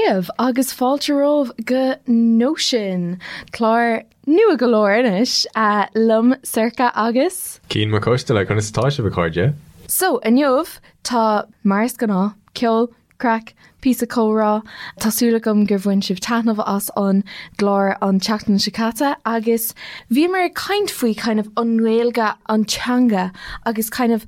daoibh agus fáilte romhaibh go Nóisean, clár nua go leor anois, liom Sorcha agus. Cian Mac Coisteala, conas atá sibh a chairde? So, inniu, tá, mar is gnáth, ceol, craic, píosa comhrá. Tá súil agam gur bhain sibh taitneamh as an gclár an tseachtain seo caite agus bhíomar ag caint faoi kind of an Ghaeilge, an teanga agus kind of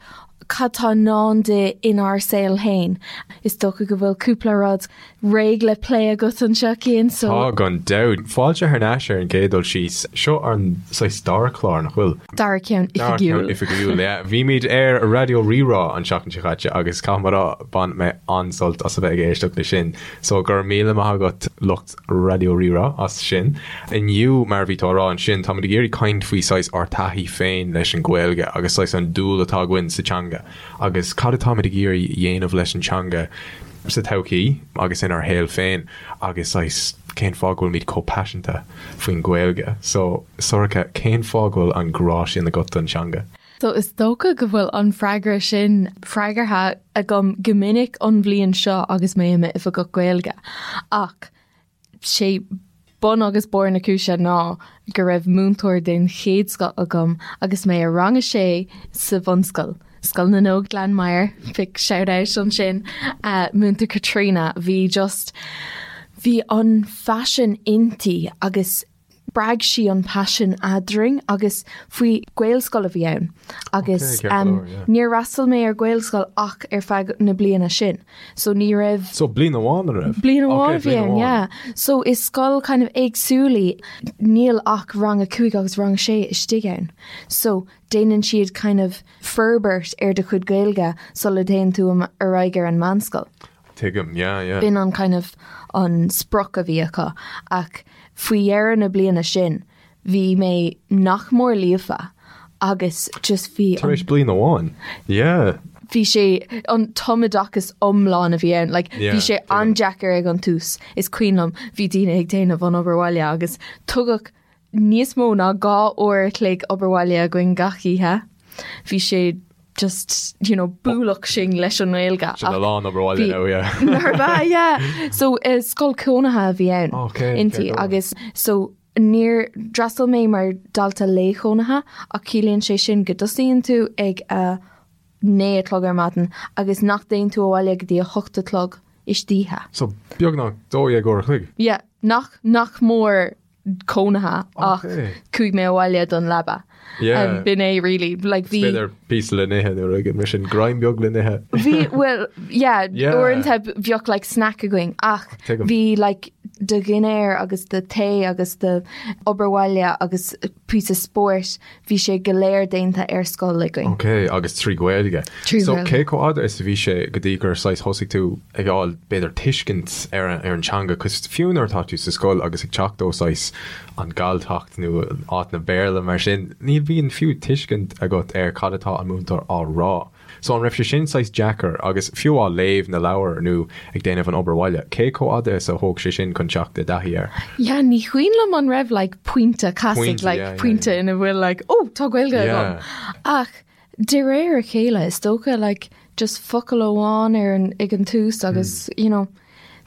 cad tá i ndán di inár saol féin. Is dócha go bhfuil cúpla rud réidh le plé agat anseo, Cian, so. Tá, gan dabht. Fáilte thar n-ais ar an gcéad dul síos. Seo an saghas dara clár, nach bhfuil? Dara ceann oifigiúil. Dara ceann oifigiúil, yeah. Bhímid ar Raidió Rí-Rá an tseachtain seo caite agus caithfidh mé a rá, bhain mé an-sult as a bheith ag éisteacht leis sin. So go raibh míle maith agat lucht Raidió Rí-Rá as sin. Inniu, mar a bhí tú á rá ansin, táimid ag iarraidh caint faoi saghas ár taithí féin leis an Ghaeilge agus saghas an dúil atá againn sa teanga agus cad atáimid ag iarraidh dhéanamh leis an teanga sa todhchaí agus inár shaol féin agus saghas cén fáth go bhfuilimid chomh paiseanta faoin Ghaeilge. So, Sorcha, cén fáth go bhfuil an grá sin agat don teanga? So is dócha go bhfuil an freagra sin freagartha agam go minic an bhliain seo agus mé i m'oifigeach Gaeilge. Ach sé bun agus barr na cúise ná go raibh múinteoir den chéad scoth agam agus mé i rang a sé sa bhunscoil, Scoil na nÓg Gleann Maghair, big shout out ansin, Múinteoir Caitríona, bhí just, bhí an phaisean inti agus spreag sí an paisean eadrainn agus faoi Gaelscoil a bhí ann agus níor fhreastail mé ar Ghaelscoil ach ar feadh na bliana sin so ní raibh So bliain amháin an raibh? Bliain amháin a bhí ann yeah. So is scoil kind of éagsúil í níl ach rang a 5 agus rang a 6 istigh ann so déanann siad kind of forbairt ar do chuid Gaeilge sula dtéann tú ar aghaidh ar an meánscoil. Tuigim, yeah, yeah. B'in an kind of an sprioc a bhí acu ach faoi dheireadh na bliana sin bhí mé nach mór líofa agus just bhí Tar éis bliain amháin, yeah. Bhí sé an tumoideachas iomlán a bhí ann, like yeah, bhí sé an-deacair ag an tús is cuimhin liom bhí daoine ag déanamh an obair bhaile agus tugadh níos mó ná 2 uair a chloig obair bhaile againn gach oíche. Bhí sé just, you know, bualadh sinn leis an nGaeilge. Sin a lán obair bhaile now, yeah. Nár bhea, yeah. So eh, scoil cónaithe a bhí ann Okay, inti fair go. agus so níor d'fhreastail mé mar dalta lae-chónaithe ach ciallaíonn sé sin go dtosaíonn tú ag a 9 a chlog ar maidin agus nach dtéann tú abhaile go dtí a 8 a chlog istoíche. So beagnach 12 uair a chloig. Yeah, nach nach mór cónaithe ach chuaigh mé abhaile don leaba. Yeah. B'in é really. Like bhí. B'fhéidir píosa le n-ithe nó rud mar sin greim beag le n-ithe. Bhí well yeah, yeah. uaireanta bheadh like snack againn ach bhí like do dhinnéar agus do tae agus do obair bhaile agus píosa spóirt bhí sé go léir déanta ar scoil againn. Ok, agus trí Ghaeilge. Trí So Ghaeilge. cé chomh fhada is a bhí sé go dtí gur saghas thosaigh tú ag fháil b'fhéidir tuiscint ar an ar an teanga, 'cause fiú nuair atá tú sa scoil agus ag teacht ó saghas an Galltacht nó áit na Béarla mar sin, ní bhíonn fiú tuiscint agat ar cad atá an múinteoir á rá. So an raibh sé sin saghas deacair agus fiú á léamh na leabhar nó ag déanamh an obair bhaile, cé chomh fhada is a thóg sé sin chun teacht i dtaithí air? Yeah, ní cuimhin liom an raibh like pointe casaidh Pointe, like yeah, yeah, pointe yeah. ina bhfuil like oh tá Gaeilge agam. Yeah. Ach de réir a chéile is dócha like just focal amháin ar an ag an tús agus Hmm. you know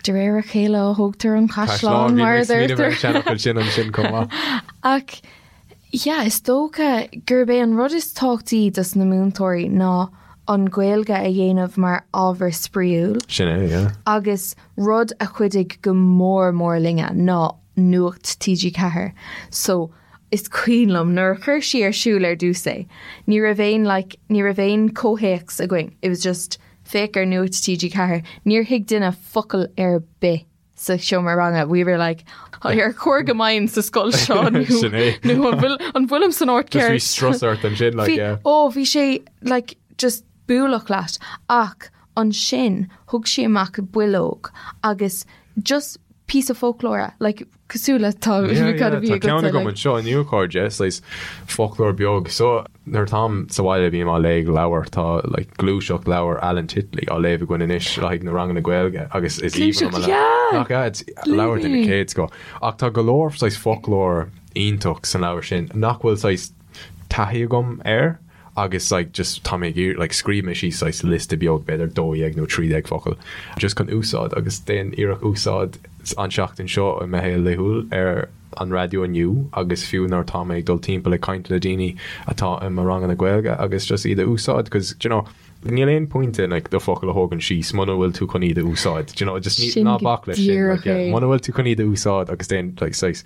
de réir a chéile a thógtar an Caisleán, caisleán bhí mar mé a ag smaoineamh ar an deirtear. seanfhocal sin ansin chomh maith. Ach Yeah, is dócha gurb é an rud is tábhachtaí dos na múinteoirí ná an Ghaeilge a dhéanamh mar ábhar spraíúil. Sin é, yeah. Agus rud a chuidigh go mór mór linne ná Nuacht TG4. So, is cuimhin liom nuair a chuir sí ar siúl ar dtús é, ní raibh aon like, ní raibh aon comhthéacs againn, it was just féach ar Nuacht TG4, níor thuig duine focal ar bith. sa seomra ranga we were like ar chóir go mbeinn sa scoil seo nó Sin é. nó an bhfuil an bhfuilim san áit Just bhí ceart strus ort ansin like Bhí yeah. ó bhí sé like just bualadh leat ach ansin thug sí amach bileog agus just píosa foclóra like cosúil le tá Yeah, cad yeah, a bhí tá ceann agatsa agam like anseo inniu a chairde, saghas foclóir beag. So nuair atáim sa bhaile bím á léamh leabhar, tá like gluaiseacht leabhar Alan Titley á léamh againn anois le haghaidh na ranganna Gaeilge agus is aoibhinn liom Gluaiseacht, an leabhar. yeah! Nach ea? It's leabhar den Léigh mé. chéad scoth. Ach tá go leor saghas foclóir iontach san leabhar sin nach bhfuil saghas taithí agam air. Agus like just tá mé ag iarraidh like scríobh mé síos saghas liosta beag b'fhéidir 12 nó 13 focal just chun úsáid agus déan iarracht úsáid an seachtain seo i mo shaol laethúil ar an raidió inniu agus fiú nuair atá mé ag dul timpeall ag caint le daoine atá i mo ranganna Gaeilge agus just iad a úsáid cause do you know níl aon pointe like do focail a thógaint síos muna bhfuil tú chun iad a úsáid do you know just ní ná bac leis sin like yeah muna bhfuil tú chun iad a úsáid agus déan like saghas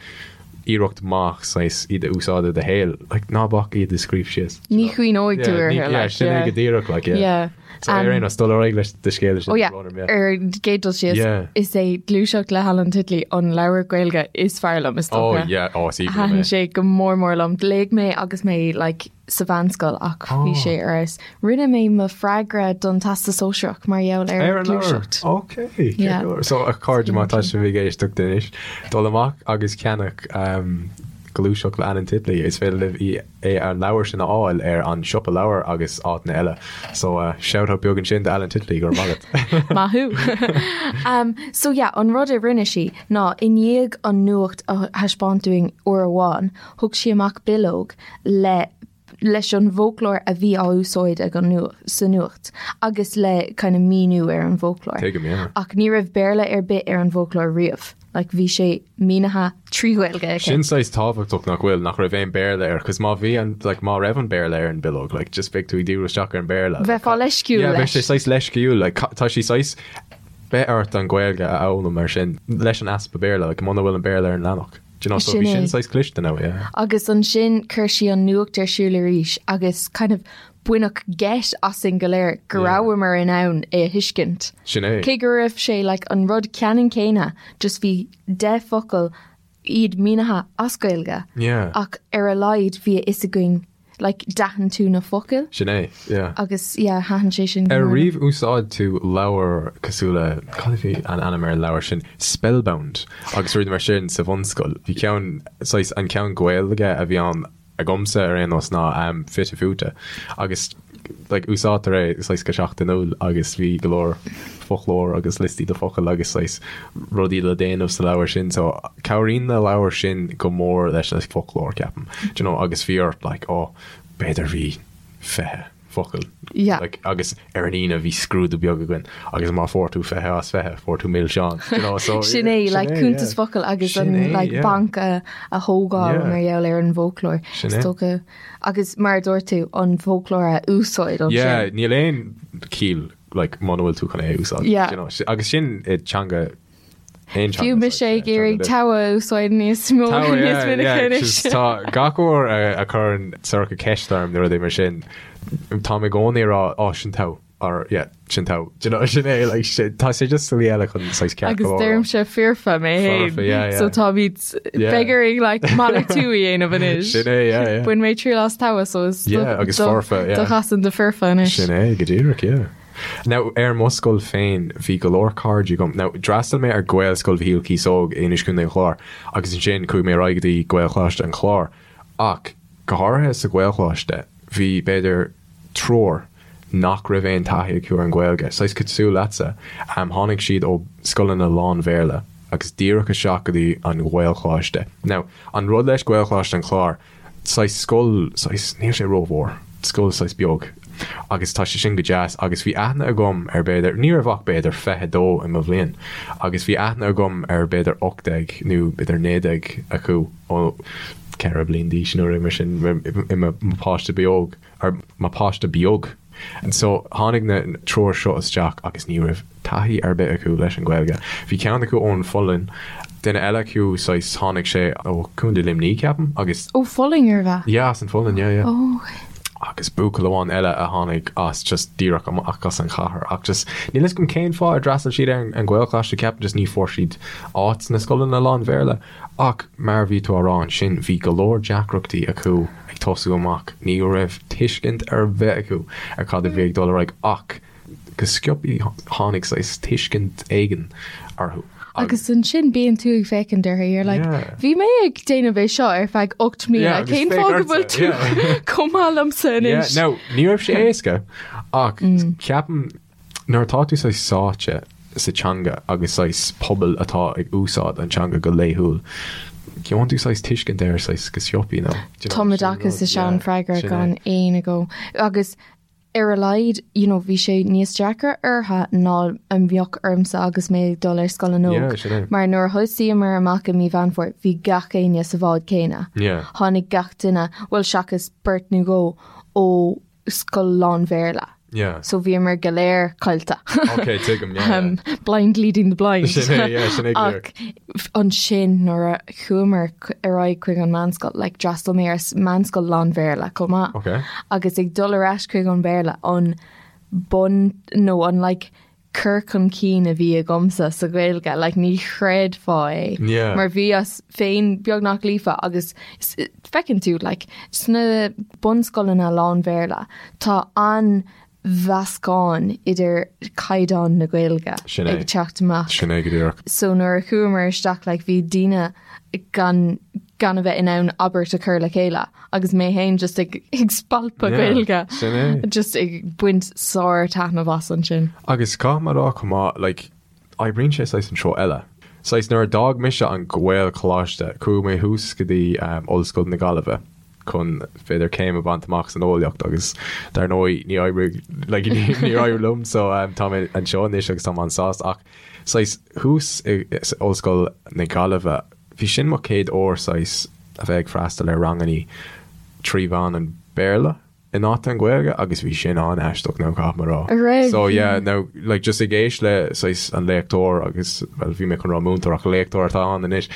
iarracht maith saghas iad a úsáid i do shaol, like ná bac iad a scríobh síos. Ní chuimhneoidh tú orthu, like, yeah. Sin é go díreach, like, yeah. Yeah. So ar aon nós, dul ar aghaidh leis do scéal sin. Oh yeah, ar an gcéad dul síos, yeah. is é Gluaiseacht le hAlan Titley an leabhar Gaeilge is fearr liom, is dócha. Oh yeah, oh, is aoibhinn liom é. Thaitin sé go mór mór liom. Léigh mé agus mé like sa mheánscoil ach bhí sé ar fheabhas. Rinne mé mo freagra don Teastas Sóisearach mar gheall ar Gluaiseacht. Ok, So a chairde má tá sibh ag éisteacht anois, dul amach agus ceannach Gluaiseacht le Alan Titley, is féidir libh í é an leabhar sin a fháil ar an siopa leabhar agus áiteanna eile. So shout out beag ansin do Alan Titley, go raibh maith agat. Maith thú. So yeah, an rud a rinne sí ná i ndiaidh an nuacht a thaispeáint dúinn uair amháin, thug sí amach bileog le leis an bhfoclóir a bhí á úsáid ag an sa nuacht agus le kind of míniú ar an bhfoclóir. Tuigim, yeah. Ach ní raibh Béarla ar bith ar an bhfoclóir riamh. Like bhí sé mínithe trí Ghaeilge aici. Sin saghas tábhachtach nach bhfuil, nach raibh aon Béarla air, cos má bhí an, like má raibh an Béarla ar an bileog, like just beidh tú ag díriú isteach ar an Béarla. Bheifeá leisciúil Yeah, bheadh sé saghas leisciúil, like tá sí saghas, beidh ort an Ghaeilge a fhoghlaim mar sin leis an easpa Béarla, like muna bhfuil an Béarla ar an leathanach. Do you know, so bhí sin saghas cliste now, yeah. Agus ansin chuir sí an nuacht ar siúl arís agus kind of baineadh geit asainn go léir go rabhamar in ann é a thuiscint. Sin é. Cé go raibh sé like an rud ceannann céanna, just bhí 10 focal iad mínithe as Gaeilge. Yeah. Ach ar a laghad bhí a fhios againn like d'aithin tú na focail. Sin é, yeah. Agus yeah, thaitin sé sin go Ar mór liom. riamh úsáid tú leabhar cosúil le, cad a bhí an ainm ar an leabhar sin, Spellbound agus rudaí mar sin sa bhunscoil. Bhí ceann, saghas, an ceann Gaeilge a bhí ann agamsa ar aon nós ná um, Fite Fuaite agus like, úsáidtear é saghas go seachtainiúil agus bhí go leor foclóir agus liostaí de focail agus saghas rudaí le déanamh sa leabhar sin so cabhraíonn na leabhair sin go mór leis an foclóir ceapaim do you know agus bhí ort like oh b'fhéidir bhí 20 focal yeah. like, agus ar an Aoine bhí scrúdú beag againn agus má fuair tú 20 as 20 fuair tú milseán you know, so, sin é like, cuntas yeah. focal agus an é, like, yeah. banc a, a thógáil yeah. mar gheall ar an bhfoclóir Sin é. Agus mar a dúirt tú, an foclóir a úsáid ansin. Yeah, níl aon chiall like muna bhfuil tú chun é a úsáid. Yeah. You know, agus sin i teanga aon teanga. Fiú mise ag iarraidh togha a úsáid níos mó níos minice anois. Tá gach uair a chuireann Sorcha ceist orm nó rudaí mar sin, táim i gcónaí ag rá, oh, sin togha. or yeah, sin togha. Do you know, sin é, like, sin, tá sé just slí eile chun saghas ceart Agus go leor. deirimse foirfe mé féin. Foirfe, yeah, yeah. So táimid Yeah. beidh orainn like malartú a dhéanamh anois. Sin é, yeah, yeah. Bhain mé triail as togha so is Yeah, agus foirfe, yeah. do chasan do foirfe anois. Sin é, go díreach, yeah. Now, ar mo scoil féin, bhí go leor cairde agam. Now, d'fhreastail mé ar Gaelscoil Mhichíl Cíosóg in Inis Contae an Chláir agus ansin chuaigh mé ar aghaidh go dtí Gaelcholáiste an Chláir. Ach, go háirithe sa Ghaelcholáiste, bhí, b'fhéidir, triúr nach raibh aon taithí acu ar an Ghaeilge, saghas cosúil leatsa. Tháinig siad ó scoileanna lán-Bhéarla agus díreach isteach go dtí an Ghaelcholáiste. Now, an rud leis Gaelcholáiste an Chláir, saghas scoil, saghas, níl sé rómhór, scoil saghas beag agus tá sé sin go deas agus bhí aithne agam ar b'fhéidir, ní raibh ach b'fhéidir 22 i mo bhliain agus bhí aithne agam ar b'fhéidir 18 nó b'fhéidir 19 acu ó 4 bliain d'aois nó rud mar sin i mo pháiste beag. ar mo pháiste beag. And so tháinig na triúr seo isteach agus ní raibh taithí ar bith acu leis an Ghaeilge. Bhí ceann acu ón Pholainn, duine eile acu saghas tháinig sé ó Contae Luimnigh ceapaim agus. Ó Pholainn arbh ea? Yeah as an Pholainn yeah yeah. Oh ok. Agus buachaill amháin eile a tháinig as just díreach amach as an chathair ach just níl fhios agam cén fáth ar d'fhreastail siad ar an Ghaelcholáiste ceapaim just ní fuair siad áit sna scoileanna lán-Bhéarla. Ach mar a bhí tú á rá ansin, bhí go leor deacrachtaí acu ag tosú amach, ní raibh tuiscint ar bith acu ar cad a bhí ag dul ar aghaidh ach go sciobtha tháinig saghas tuiscint éigin orthu. Agus ansin bíonn tú ag féachaint orthu, you're like, bhí mé ag déanamh é seo ar feadh 8 mbliana, cén fáth go bhfuil tú chomh maith liomsa anois? Now, ní raibh sé éasca ach ceapaim Nuair atá tú saghas sáite sa teanga agus saghas pobal atá ag úsáid an teanga go laethúil, Gheobhann tú saghas tuiscint air saghas go sciobtha nó do you know, Tumoideachas is ea an freagra Sin é. gan aon agó. Agus ar a laghad, you know, bhí sé níos deacra orthu ná a bheadh ormsa agus mé ag dul ar scoil an Yeah, óg. sin é. Mar nuair a thosaíomar amach i mí Mheán Fómhair, bhí gach éinne sa bhád céanna. Yeah. Tháinig gach duine, bhuel seachas beirt nó dhó, ó scoil lán-Bhéarla. Yeah. So bhíomar go léir caillte. Ok, tuigim, yeah, yeah. Um, blind leading the blind. Sin é, yeah, sin é go Ach ansin nuair a chuamar ar aghaidh chuig an meánscoil, like d'fhreastail mé ar meánscoil lán-Bhéarla chomh maith. Ok. Agus ag dul ar ais chuig an Béarla, an bun nó an like cur chun cinn a bhí agamsa sa Ghaeilge, like ní chreidfeá é. Yeah. Mar bhíos féin beagnach líofa agus feiceann tú like sna bunscoileanna lán-Bhéarla tá an mheascán idir caighdeán na Gaeilge Sin é. ag teacht amach. Sin é go díreach. So nuair a chuamar isteach like bhí daoine gan gan a bheith in ann abairt a chur le chéile agus mé féin just ag ag spalpadh Yeah, Gaeilge. sin é. Just ag baint sár-taitneamh as ansin. Agus caithfidh mé a rá chomh maith, like, oibríonn sé saghas an treo eile. Saghas nuair a d'fhág mise an Gaelcholáiste, chuaigh mé thuas go dtí um, Ollscoil na Gaillimhe chun b'fhéidir céim a bhaint amach san eolaíocht agus dar ndóigh ní oibrigh like, ní, níor éirigh liom so um, tá mé anseo anois agus tá mé an-sásta ach saghas thuas i, i, Ollscoil na Gaillimhe bhí sin mo chéad uair saghas a bheith ag freastal ar rangannaí trí mheán an Béarla in áit an Ghaeilge agus bhí sin an-aisteach now caithfidh mé a rá. An raibh? So yeah, now like just ag éisteacht le saghas an léachtóir agus well bhí mé chun rá múinteoir ach léachtóir atá ann anois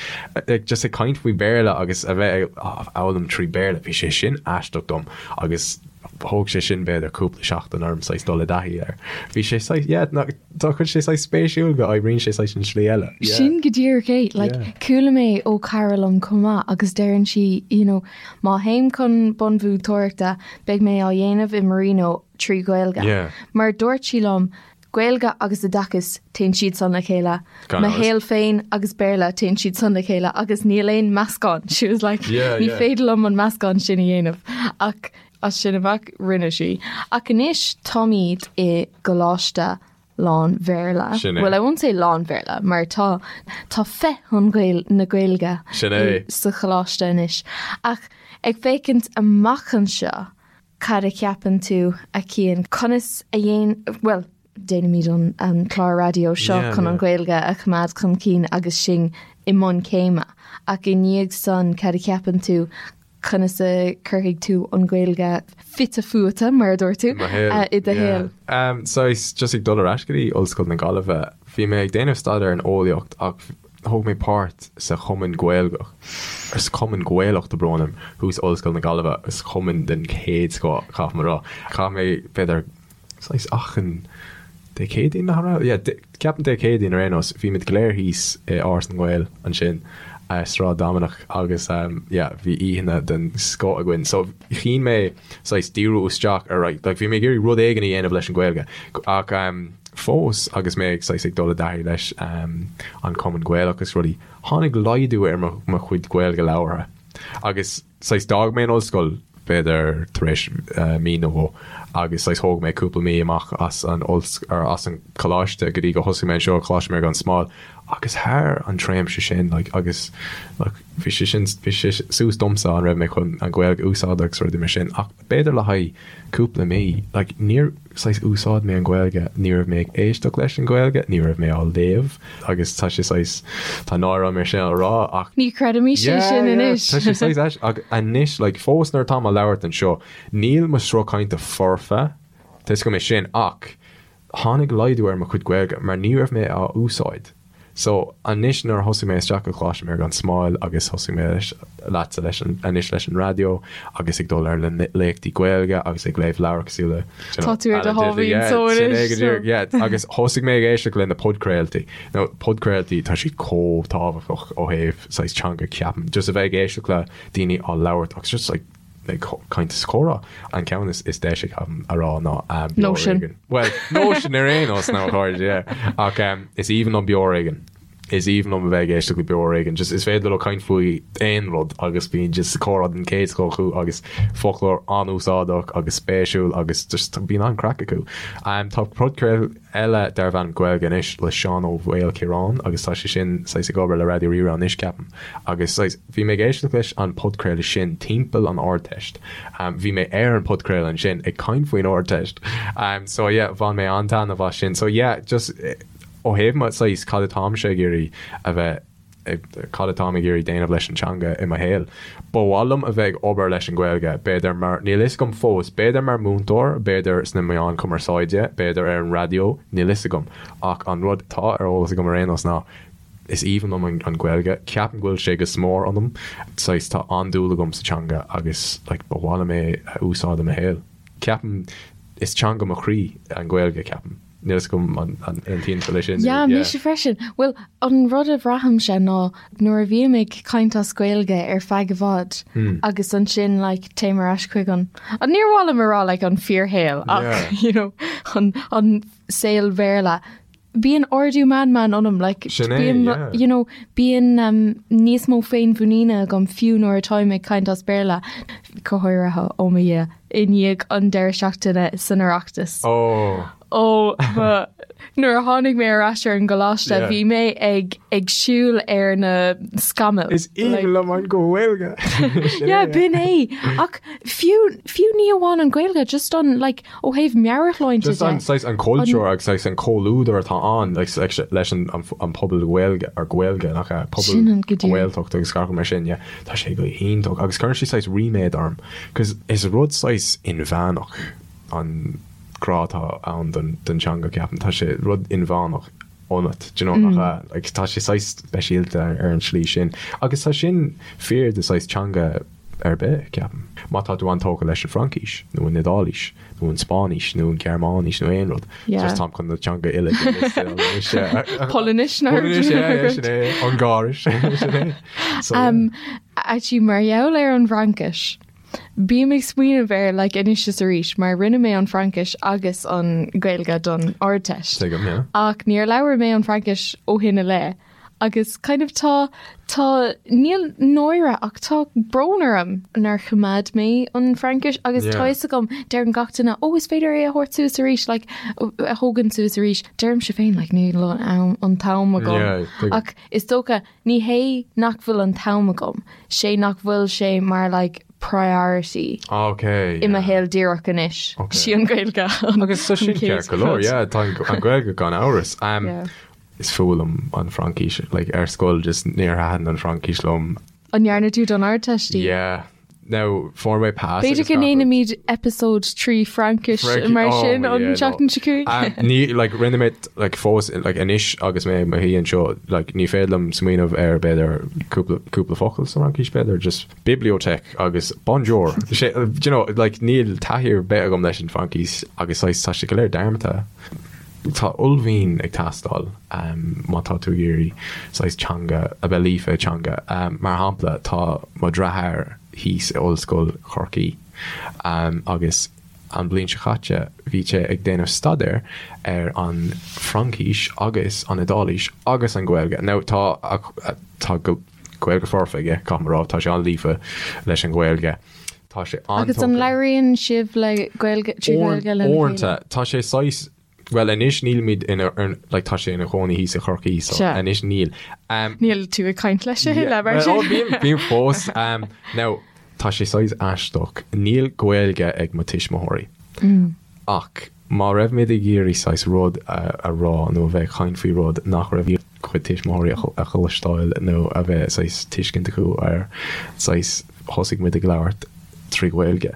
like just ag caint faoi Béarla agus a bheith ag foghlaim trí Béarla bhí sé sin aisteach dom agus thóg sé sin b'fhéidir cúpla seachtain orm saghas dul i dtaithí air. Bhí sé saghas yeah ná tá chuid sé saghas spéisiúil go oibríonn sé saghas an slí eile. Yeah. Sin go díreach é. Like, Yeah. Chuala mé ó cara liom chomh maith agus deireann sí, you know, Má théim chun bunmhúinteoireachta, beidh mé á dhéanamh i Marino trí Ghaeilge. Yeah. Mar dúirt sí liom, Gaeilge agus oideachas, téann siad san le chéile. Gan Mo amhras. shaol féin agus Béarla, téann siad san le chéile agus níl aon meascán. She was like, Yeah, ní yeah. féidir liom an meascán sin a dhéanamh. Ach as sin amach, rinne sí. Ach anois táimid i gcoláiste lán-Bhéarla. Sin é. Well, I won't say lán-Bhéarla, mar tá tá féith an Ghael na Gaeilge Sin é. sa choláiste anois. Ach ag féachaint amach anseo, cad a cheapann tú, a Chian? Conas a dhéan, bhuel, déanaimid an an clár raidió seo Yeah, chun an yeah. Ghaeilge a choimeád chun cinn agus sinn i mbun céime. Ach i ndiaidh san, cad a cheapann tú, Conas a chuirfidh tú an Ghaeilge fite fuaite, mar a dúirt tú, I mo shaol. i do shaol? Yeah. Saghas, just ag dul ar ais go dtí Ollscoil na Gaillimhe, bhí mé ag déanamh staidéar in eolaíocht ach thóg mé páirt sa Chumann Gaeilgeach, or sa Chumann Gaelach, tá brón orm, thuas Ollscoil na Gaillimhe, is cumann den chéad scoth, caithfidh mé a rá. Chaith mé, b'fhéidir, saghas achan Dé Céadaoin, nach raibh? Yeah, ceapaim Dé Céadaoin ar aon nós, bhí muid go léir thíos i Áras na nGael ansin, Sráid Dominic agus yeah, bhí oícheanna den scoth againn. So chinn mé saghas díriú isteach ar like, bhí mé ag iarraidh rud éigin a dhéanamh leis an Ghaeilge ach fós agus mé ag saghas ag dul i dtaithí leis an Cumann Gaelach agus rudaí, tháinig laghdú ar mo chuid Gaeilge labhartha agus saghas d'fhág mé an ollscoil b'fhéidir tar éis mí nó dhó agus saghas thóg mé cúpla mí amach as an or as an coláiste go dtí go thosaigh mé anseo Coláiste Mhuire gan Smál agus thar an tréimhse sin like agus like bhí sé sin bhí sé suas domsa an raibh mé chun an Ghaeilge a úsáid agus rudaí mar sin ach b'fhéidir le haghaidh cúpla mí like níor saghas úsáid mé an Ghaeilge, ní raibh mé ag éisteacht leis an Ghaeilge, ní raibh mé á léamh agus tá sé saghas, tá náire orm é sin a rá ach. Ní chreidimís é sin anois. Tá sé saghas ais ach anois like fós nuair atá mé ag labhairt anseo, níl mo sruth cainte foirfe, tá 'fhios agam é sin ach tháinig laghdú ar mo chuid Gaeilge mar ní raibh mé á úsáid. So, anois nuair a thosaigh mé isteach go Coláiste Mhuire gan Smál agus thosaigh mé leis, leatsa leis an, anois leis an raidió agus ag dul ar na léachtaí Gaeilge agus ag léamh leabhar cosúil le, you know, Tá tú ar do Alan Titley, sháimhín yeah, só sin é anois, go so. díreach, yeah, agus thosaigh mé ag éisteacht le na podchraoltaí. Now, podchraoltaí, tá siad chomh tábhachtach ó thaobh saghas teanga, ceapaim. Just a bheith ag éisteacht le daoine á labhairt agus just like, ag caint is comhrá. An ceann is deise ceapaim a rá ná Beo Nóisean. Ar Éigean. Well, Nóisean ar aon nós ná chairde, yeah. Ach is aoibhinn liom Beo Ar Éigean. Is aoibhinn liom a bheith ag éisteacht le Beo Ar Éigean. Just is féidir leo caint faoi aon rud agus bíonn just comhrá den chéad scoth acu agus foclóir an-úsáideach agus spéisiúil agus just bíonn an-craic acu. Tá podchraoladh eile darb ainm Gaeilge Anois le Seán Ó Maoilchiaráin agus tá sé sin saghas ag obair le Raidió Rí-Rá anois ceapaim agus saghas bhí mé ag éisteacht leis an podchraoladh sin timpeall an Ardteist. Bhí mé ar an podchraoladh ansin ag caint faoin Ardteist. So yeah bhain mé an-taitneamh as sin. So yeah just Ó thaobh mo saghas cad atáimse ag iarraidh a bheith cad atáim ag iarraidh déanamh leis an teanga i mo shaol. Ba mhaith liom a bheith ag obair leis an Ghaeilge, b'fhéidir mar, níl fhios agam fós, b'fhéidir mar múinteoir, b'fhéidir sna meáin cumarsáide, b'fhéidir ar an raidió, níl fhios agam. Ach an rud atá ar eolas agam ar aon nós ná is aoibhinn liom an Ghaeilge, ceapaim go bhfuil sé go smior ionam, saghas tá an-dúil agam sa teanga agus like ba mhaith liom é a úsáid i mo shaol. Ceapaim is teanga mo chroí an Ghaeilge, ceapaim. Níl fhios agam an aontaíonn tú leis sin. Yeah, mise freisin. Bhuel, an rud a bhraithimse ná nuair a bhím ag caint as Gaeilge ar feadh i bhfad agus ansin like téim ar ais chuig an, níor mhaith liom a rá like an fíorshaol ach you know an an saol Bhéarla, bíonn ardú meanman ionam like Sin é, yeah. you know bíonn um, níos mó féinmhuiníne agam fiú nuair atáim ag caint as Béarla, go háirithe ó mo Dhia. i ndiaidh an deireadh seachtaine san Oireachtas. Ó! Ó, ba, nuair a tháinig mé ar ais ar an gcoláiste, Yeah. bhí mé ag, ag siúl ar na scamaill. Is aoibhinn liom an Ghaeilge! Sin Yeah, é. b'in é. Ach fiú, fiú ní amháin an Ghaeilge, just an, like, ó thaobh meabhairshláinte Just de. an, saghas, an cultúr agus saghas an comhluadar atá ann, like, leis an, an, an pobal Gaeilge, or Gaeilge, nach ea, pobal Sin an go díreach. Gaeltacht agus gach rud mar sin, yeah. Tá sé go hiontach agus cuireann sé saghas ríméad orm 'cause is rud saghas inmheánach an grá atá ann don don teanga ceapaim. Tá sé rud inmheánach ionat, do you know, nach ea? Like tá sé saghas speisialta ar an tslí sin. Agus tá sin fíor do saghas teanga ar bith, ceapaim. Má tá tú an-tógtha leis an Fhraincis nó an Iodáilis nó an Spáinnis nó an Ghearmáinis nó aon rud. Yeah. Just táim chun na teanga uile de liosta anois, yeah. Polainnis nó Polainnis, yeah, yeah, sin é. Ungáiris, sin é. So, yeah. Um, actually, mar gheall ar an bhFraincis, bím ag smaoineamh air like, anois is arís, mar rinne mé an Fhraincis agus an Ghaeilge don Ardteist. Tuigim, yeah. Ach níor labhair mé an Fhraincis ó shin i leith. Agus kind of tá, tá, níl náire ach tá brón orm nár choimeád mé an Fhraincis agus tá Yeah. fhios agam, deireann gach duine, oh is féidir é a thabhairt suas arís, like, a thógaint suas arís. Deirimse féin, like, níl an am, an t-am agam. Yeah, tuigim. Ach is dócha, ní hé nach bhfuil an t-am agam, sé nach bhfuil sé mar like priority Okay, i mo yeah. shaol díreach anois. Okay. Sí an Ghaeilge an Agus tá an sin chéad ceart go leor, rud. yeah, tá an an Ghaeilge gan amhras. Um, Yeah. Is fuath liom an Fhraincis, like ar scoil just níor thaitin an Fhraincis liom. An ndearna tú don Ardteist í? Yeah. Now, fuair mé pass B'fhéidir agus go gach rud. ndéanfaimid episode 3 Fraincis Fraincis, mar oh sin my an yeah, no. tseachtain seo chugainn. Um, ní, like, rinne mé, like, fós, like, anois agus mé i mo shuí anseo, like, ní féidir liom smaoineamh ar b'fhéidir cúpla, cúpla focal sa Fhraincis, b'fhéidir, just bibliothèque agus bonjour. Sé, do you know, like, níl taithí ar bith agam leis an Fhraincis agus saghas tá sé go léir dearmadta. Tá uaillmhian ag teastáil má tá tú ag iarraidh saghas teanga, a bheith líofa i dteanga. Mar shampla, tá mo dheartháir thíos i Ollscoil Chorcaí agus an bhliain seo caite bhí sé ag déanamh staidéir ar an Fhraincis agus an Iodáilis agus an Ghaeilge. Now tá tá Gaeilge foirfe aige, caithfidh mé a rá, tá sé an-líofa leis an Ghaeilge. Tá sé Agus an an-tógtha. labhraíonn sibh le Gaeilge, trí Ghaeilge lena chéile? Uaireanta, tá sé saghas, bhuel anois nílimid ina, like tá sé ina chónaí thíos i Chorcaí so Sea. anois níl. Um, Níl tú ag caint leis a thuilleadh mar well, sin. oh, bím, bím fós. Um, now, tá sé saghas aisteach. Níl Gaeilge ag mo tuismitheoirí. Ach má raibh muid ag iarraidh saghas rud a, a rá nó a bheith ag caint faoi rud nach raibh chuid tuismitheoirí a chloisteáil nó a bheith saghas tuiscint acu air, saghas thosaigh muid ag labhairt trí Ghaeilge.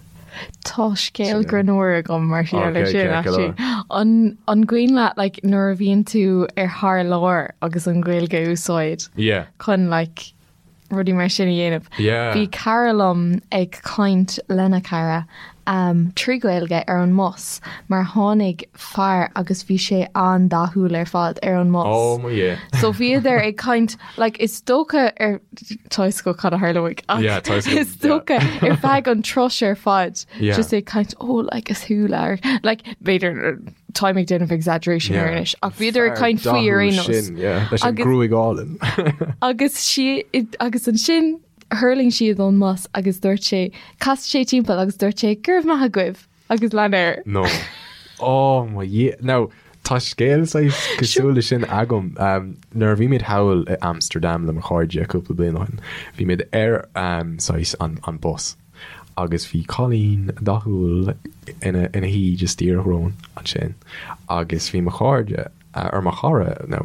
Tá scéal greannmhar agam mar gheall air Ok, sin ceart go actually. leor. An an cuimhin leat like nuair a bhíonn tú ar thar lear agus an Ghaeilge a úsáid Yeah. chun like rudaí mar sin a dhéanamh. Yeah. Bhí cara liom ag caint lena cara um, trí Ghaeilge ar an mbus mar tháinig fear agus bhí sé an-dathúil ar fad ar an mbus. Oh my yeah. So bhíodar ag caint like, is dócha ar tá fhios agat cad a tharlóidh ach Yeah, tá fhios agam, is dócha ar feadh an turais ar fad Yeah. just ag caint oh like is thú lear like b'fhéidir. Táim ag déanamh exaggeration ar anois ach bhíodar ag caint faoi ar aon nós. Leis an gruaig álainn. Agus sí agus ansin thuirling siad ón mbus agus dúirt sé, chas sé timpeall agus dúirt sé, go raibh maith agaibh agus lean air. No. Oh mo Dhia. Now, tá scéal saghas cosúil leis sin agam. Um, nuair a bhí muid thall i Amsterdam le mo chairde cúpla bliain ó shin, bhí muid ar um, saghas an, an bus. Agus bhí cailín dathúil ina ina shuí just díreach romhainn ansin agus bhí mo chairde, or mo chara nó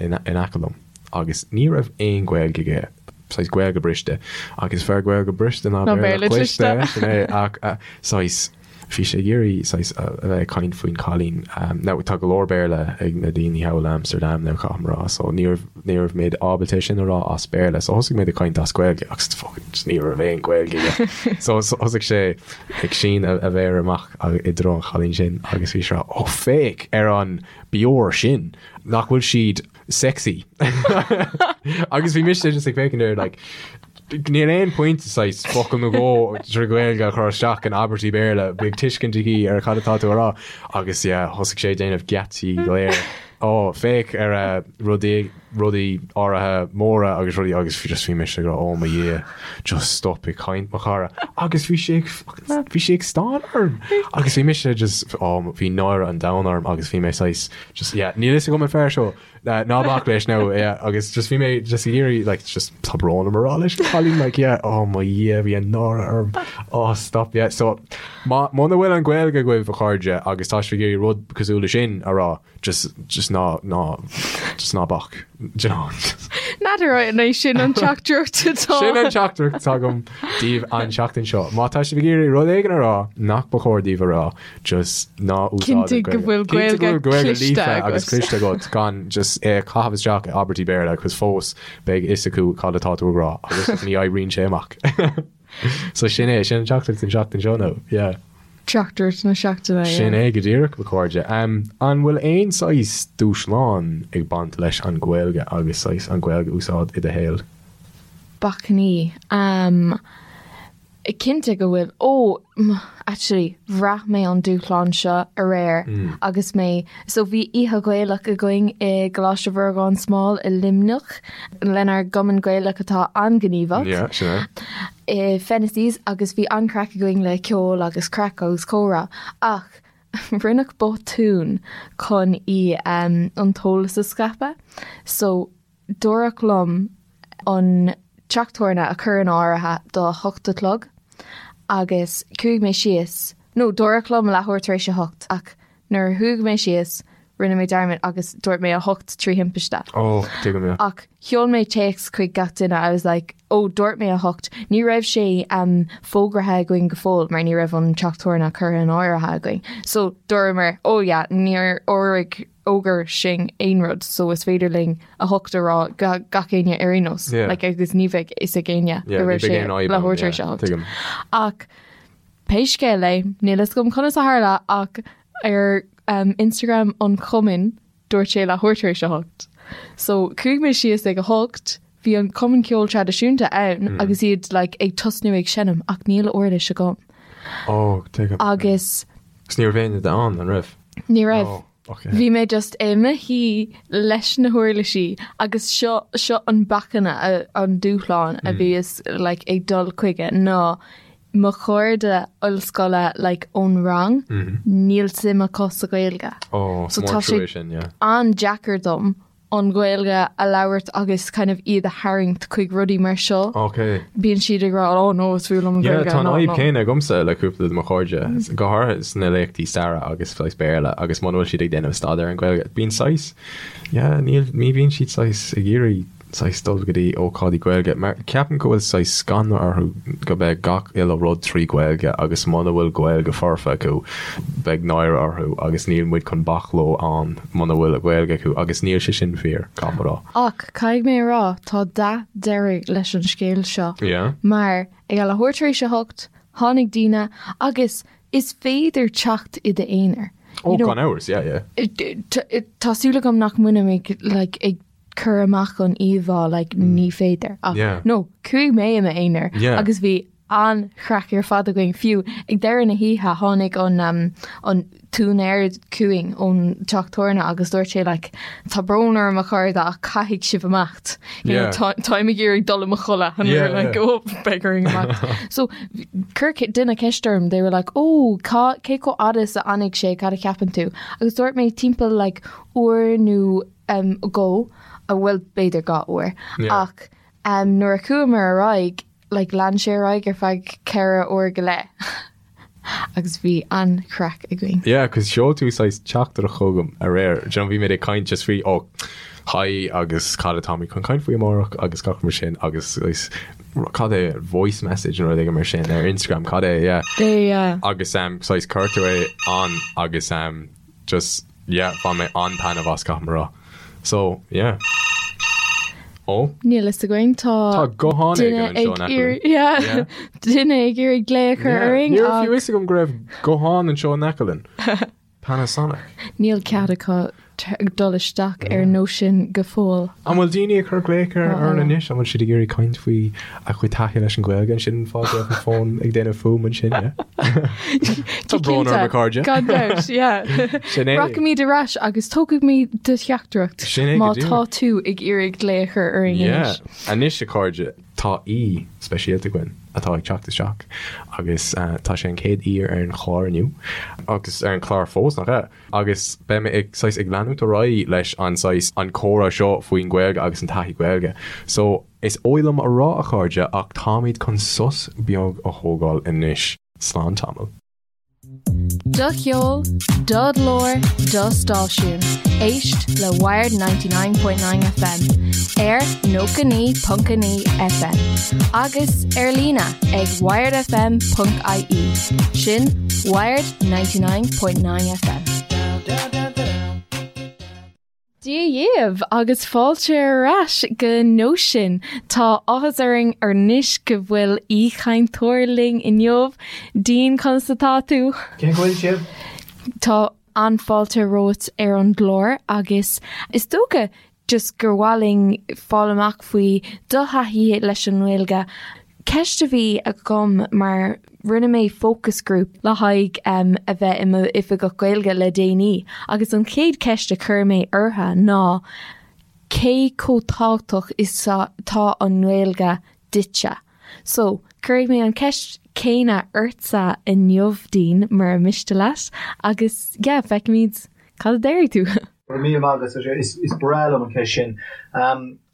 in in aice liom agus ní raibh aon Ghaeilge aige, saghas Gaeilge briste agus is fearr Gaeilge briste ná Béarla cliste, sin é, ach saghas bhí sé ag iarraidh saghas a bheith ag caint faoin chailín. Now tá go leor Béarla ag na daoine thall in Amsterdam now caithfidh mé a rá so ní raibh ní raibh mé ábalta é sin a rá as Béarla so thosaigh mé ag caint as Gaeilge agus fucking just ní raibh aon Ghaeilge aige. So thosaigh sé ag síneadh a mhéar amach i dtreo an chailín sin agus bhí sé ag rá oh féach ar an bior sin nach bhfuil siad sexy. Agus bhí mise just ag féachaint air like Níl aon pointe saghas focal nó dhó trí Ghaeilge a chur isteach in abairtí Béarla, beidh tuiscint aici ar cad atá tú a rá. Agus yeah, thosaigh sé ag déanamh geáitsí go léir. Ó, féach ar a rudaí, rudaí áirithe móra agus rudaí agus just bhí mise ag rá, oh mo Dhia, just stop ag caint mo chara. Agus bhí sé ag fucking, bhí sé ag stánadh orm. Agus bhí mise just, oh, bhí náire an domhain orm agus bhí mé saghas, just yeah, níl fhios agam an fear seo. Ná bac leis now, yeah, agus just bhí mé just ag iarraidh like just tá brón orm a rá leis an chailín like yeah, oh mo Dhia bhí an náire orm, oh stop yeah. So má muna bhfuil an Ghaeilge agaibh a chairde agus tá sibh ag iarraidh rud cosúil leis sin a rá just just ná ná just ná bac, do you know. N'fheadar an é sin an teachtaireacht atá. Sin an teachtaireacht atá agam daoibh an seachtain seo. Má tá sibh ag iarraidh rud éigin a rá nach ba chóir daoibh a rá, just ná úsáid Cinntigh go bhfuil Gaeilge cliste agat. agus cliste agat gan just é a chaitheamh isteach i abairtí Béarla cos fós beidh fhios acu cad atá tú ag rá agus ní oibríonn sé amach. So sin é, sin an teachtaireacht an seachtain seo nó, yeah. Teachtaireacht na seachtaine, yeah. Sin é go díreach, mo chairde. Um, an bhfuil aon saghas dúshlán ag baint leis an Ghaeilge agus saghas an Ghaeilge a úsáid i do shaol? Bacainní. Um, Cinnte go bhfuil. Ó, actually, bhraith mé an dúshlán seo aréir agus mé, so bhí oíche Ghaelach againn i gColáiste Mhuire gan Smál i Luimneach lenár gcumann Gaelach atá an-ghníomhach. Yeah, sin é. I Fennessys agus bhí an-craic againn le ceol agus craic agus comhrá ach rinneadh botún chun í an t-eolas a scaipeadh. So Dúradh liom an teach tabhairne a chur in áirithe do 8 a chlog agus chuaigh mé síos, nó dúradh liom leathuair tar éis a hocht ach nuair a chuaigh mé síos rinne mé dearmad agus dúirt mé a hocht trí thimpiste. Oh, tuigim, yeah. Ach sheol mé téacs chuig gach duine, I was like, oh dúirt mé a hocht, ní raibh sé um, fógraithe againn go fóill mar ní raibh an teach tabhairne curtha in áirithe againn. So dúramar, oh yeah, níor fhógraigh fhógair sinn aon rud so is féidir linn a hocht a rá go gach éinne ar aon nós Yeah. like, agus ní bheidh fhios ag éinne Yeah, go ní raibh bheidh sé aon fhadhb ann, leathuair tar yeah, éis a hocht. tuigim. Ach pé scéal é, níl fhios agam conas a tharla ach ar um, Instagram an chumainn dúirt sé leathuair tar éis a hocht. So chuaigh mé síos ag a hocht, bhí an cumann ceoil traidisiúnta ann Mm. agus iad like, ag tosnú ag seinm ach níl uirlis agam. Oh, tuigim. Agus Agus ní raibh éinne ann, an raibh? ní raibh. Oh, okay. Bhí mé just i mo shuí leis na huirlisí agus seo seo an bacainn an dúshlán a bhíos like, ag dul chuige ná mo chairde ollscoile like, ón rang níl suim acu sa Ghaeilge. Oh, So mór tá sé trua sin, yeah. an-deacair dom an Ghaeilge a labhairt agus kind of iad a tharraingt chuig rudaí mar seo. Ok. Bíonn siad ag rá, oh no, is fuath liom an Yeah, Ghaeilge, tá an no, fhadhb no. céanna agamsa le cúpla de mo chairde, go háirithe sna léachtaí staire agus saghas Béarla agus muna bhfuil siad ag déanamh staidéar ar an Ghaeilge, bíonn saghas, yeah, níl, ní bhíonn siad saghas ag iarraidh saghas dul go dtí ócáidí Gaeilge mar ceapaim go bhfuil saghas scanradh orthu go mbeidh gach uile rud trí Ghaeilge agus muna bhfuil Gaeilge foirfe acu beidh náire orthu agus níl muid chun bac leo ann muna bhfuil Gaeilge acu agus níl sé sin fíor, caithfidh mé a rá. Ach caithfidh mé a rá, tá dath deiridh leis an scéal seo. Yeah. Mar ag a leathuair tar éis a hocht, tháinig daoine agus is féidir teacht i d'aonar. Oh, gan amhras, yeah, yeah. Tá súil agam nach mbainim ag like, ag cur amach an íomhá like, ní féidir. Ach Yeah. no, chuaigh mé i m'aonar Yeah. agus bhí an-chraic ar fad againn. Fiú ag deireadh na hoíche tháinig an an t-úinéir chugainn ón teach tabhairne agus dúirt sé like tá brón orm a chairde ach caithfidh sibh imeacht. You know, Yeah. Táim ag iarraidh dul i mo chodladh and we were Yeah, like yeah. oh beidh orainn imeacht. So chuir duine ceist orm they were like oh cá cé chomh fhada is a fhanfaidh sé cad a cheapann tú agus dúirt mé timpeall like uair nó um, go a bhfuil b'fhéidir 2 uair Yeah. ach um, nuair a chuamar ar aghaidh like lean sé ar aghaidh ar feadh 4 uair go leith agus bhí an-chraic againn. Yeah, cos sheol tú saghas teachtaireacht chugam aréir. Do you know, bhí mé ag caint just faoi, oh, hi agus cad atáimid chun caint faoi amárach agus gach mar sin agus saghas, cad é, voice message nó rud éigin mar sin ar Instagram, cad é, yeah. Yeah. Agus um, saghas chuir tú é ann agus um, Just, yeah, bhain mé an-taitneamh as, caithfidh mé a rá. So, yeah. Ó? Níl fhios againn, tá Tá guthán éigin duine anseo ag in aice iarraidh, linn. yeah, Yeah. duine ag iarraidh glao a chur Yeah. orainn Ní raibh ach fiú fhios agam go raibh guthán anseo in aice linn. Panasonic. níl cead acu dul isteach ar Nóisean go fóill. An bhfuil daoine ag cur glaoch ar orainn anois? An bhfuil siad ag iarraidh caint faoi a gcuid taithí leis an Ghaeilge? An sin an fáth go raibh an fón ag déanamh fuaim ansin, yeah? Tá brón orm a chairde. Gan dabht, yeah. Sin é. Rachaimid ar ais agus tógfaimid do theachtaireacht Sin é go má díreach. tá tú ag iarraidh glao a chur orainn Yeah. anois. Anois a chairde, tá aoi speisialta againn atá ag teacht isteach agus tá sé an chéad aoi ar an chlár inniu agus ar an chlár fós, nach ea? Agus beidh mé ag saghas ag leanúint ar aghaidh leis an saghas an comhrá seo faoin Ghaeilge agus an taithí Gaeilge. So, is oth liom a rá a chairde ach táimid chun sos beag a thógáil anois. Slán tamall. Do cheol, do ghlór, do stáisiún. Éist le Wired 99.9 FM ar 99.9 FM agus ar líne ag wiredfm.ie. Sin Wired 99.9 FM. Dia dhaoibh agus fáilte ar ais go Nóisean. Tá áthas orainn anois go bhfuil aoichainteoir linn inniu. Dean, conas atá tú? Cén chaoi a bhfuil sibh? Tá an-fháilte romhat ar an gclár agus is dócha just gur mhaith linn fáil amach faoi do thaithí leis an nGaeilge. Ceist a bhí agam mar rinne mé focus group le haghaidh a bheith i m'oifigeach Gaeilge le déanaí agus an chéad cheist a chuir mé orthu ná cé chomh tábhachtach is atá an Ghaeilge duitse? So, cuirfidh mé an ceist céanna ortsa inniu, Dean, mura miste leat, agus yeah, feicfimid cad a déarfaidh tú. Go raibh míle maith agat, is breá liom an ceist sin.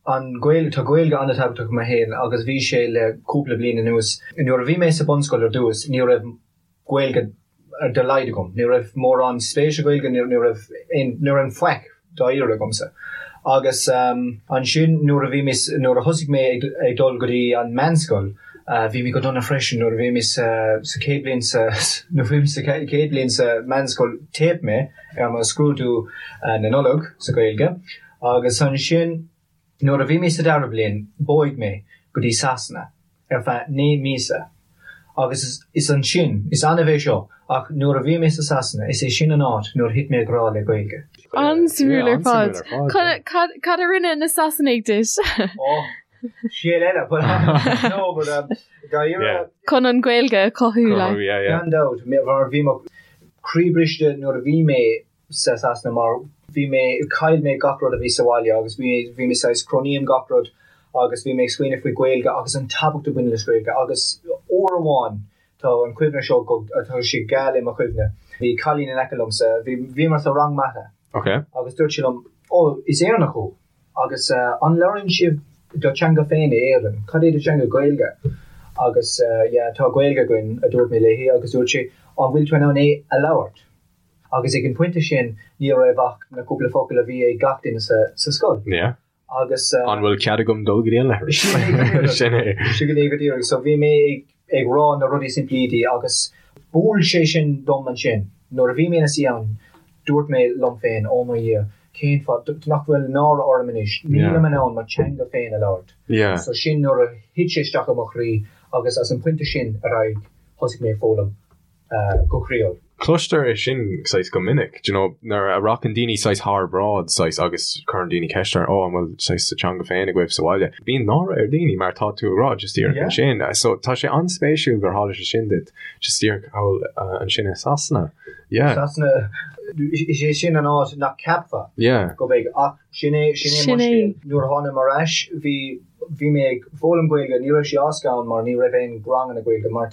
An Ghaeilge, tá Gaeilge an-tábhachtach i mo shaol agus bhí sé le cúpla bliain anuas. Nuair a bhí mé sa bunscoil ar dtús, ní raibh Gaeilge dá laghad agam. Ní raibh mórán spéis i Gaeilge, ní raibh aon, ní raibh aon faic dáiríre agamsa. Agus ansin nuair a bhí mé, nuair a thosaigh mé ag dul go dtí an meánscoil, bhí mé go dona freisin nuair a bhí mé sa chéad bhliain sa, nuair a bhí mé sa chéad bhliain sa meánscoil, theip mé ar mo scrúdú na Nollag sa Ghaeilge. Agus ansin, nuair a bhí mé sa dara bliain, bhog mé go dtí Sasana ar feadh 9 míosa. Agus is ansin, is annamh é seo, ach nuair a bhí mé sa Sasana, is é sin an áit nuair a thit mé i grá le Gaeilge. An-suimiúil ar fad. Cad a rinne na Sasanaigh duit? Oh, scéal eile, but no, but um, dáiríre. Chun an Ghaeilge a chothú, like. Gan dabht, mar bhí mo chroí briste nuair a bhí mé sa Sasana mar bhí mé, chaill mé gach rud a bhí sa bhaile agus bhí, bhí mé saghas, cronaím gach rud agus bhí mé ag smaoineamh faoi Gaeilge agus an tábhacht a bhaineann leis Gaeilge agus uair amháin tá an cuimhne seo go, tá sé geal i mo chuimhne, bhí cailín in aice liomsa, bhí, bhíomar sa rang mata Ok. agus dúirt sí liom, ó, is Éireannach thú agus an labhraíonn sibh do teanga féin i Éirinn, cad é do teanga, Gaeilge? Agus yeah, tá Gaeilge againn a dúirt mé léi agus dúirt sí, an bhfuil tú in ann é a labhairt? Agus ag an pointe sin ní raibh ach na cúpla focal a bhí ag gach duine sa scoil. Yeah. Agus. An bhfuil cead agam dul go dtí an leithreas? Sin é go díreach. Sin é. Sin é go díreach. So bhí mé ag rá na rudaí simplí di agus bhuail sé sin dom ansin. Nuair a bhí mé ina suí ann, dúirt mé liom féin, oh mo Dhia, cén fáth nach bhfuil náire orm anois, nílim in ann mo teanga féin a labhairt. Yeah. So sin nuair a thit sé isteach i mo chroí agus as an pointe sin ar aghaidh thosaigh mé ag foghlaim. go croíúil. Cloistear é sin saghas go minic, do you know, nuair a rachainn daoine saghas thar bráid saghas agus cuireann daoine ceist orthu, oh an bhfuil saghas sa teanga féin agaibh sa bhaile? Bíonn náire ar daoine mar tá tú ag rá just díreach Yeah. ansin. So tá sé an-spéisiúil gur tharla sé sin duit just díreach thall ansin i Sasana. Yeah. Sasana, is é sin an áit nach ceapfá Yeah. go mbeidh ach sin é sin é mo scéal. Nuair a tháinig mé ar ais bhí bhí mé ag foghlaim Gaeilge, ní raibh sé éasca ann mar ní raibh aon ranganna Gaeilge mar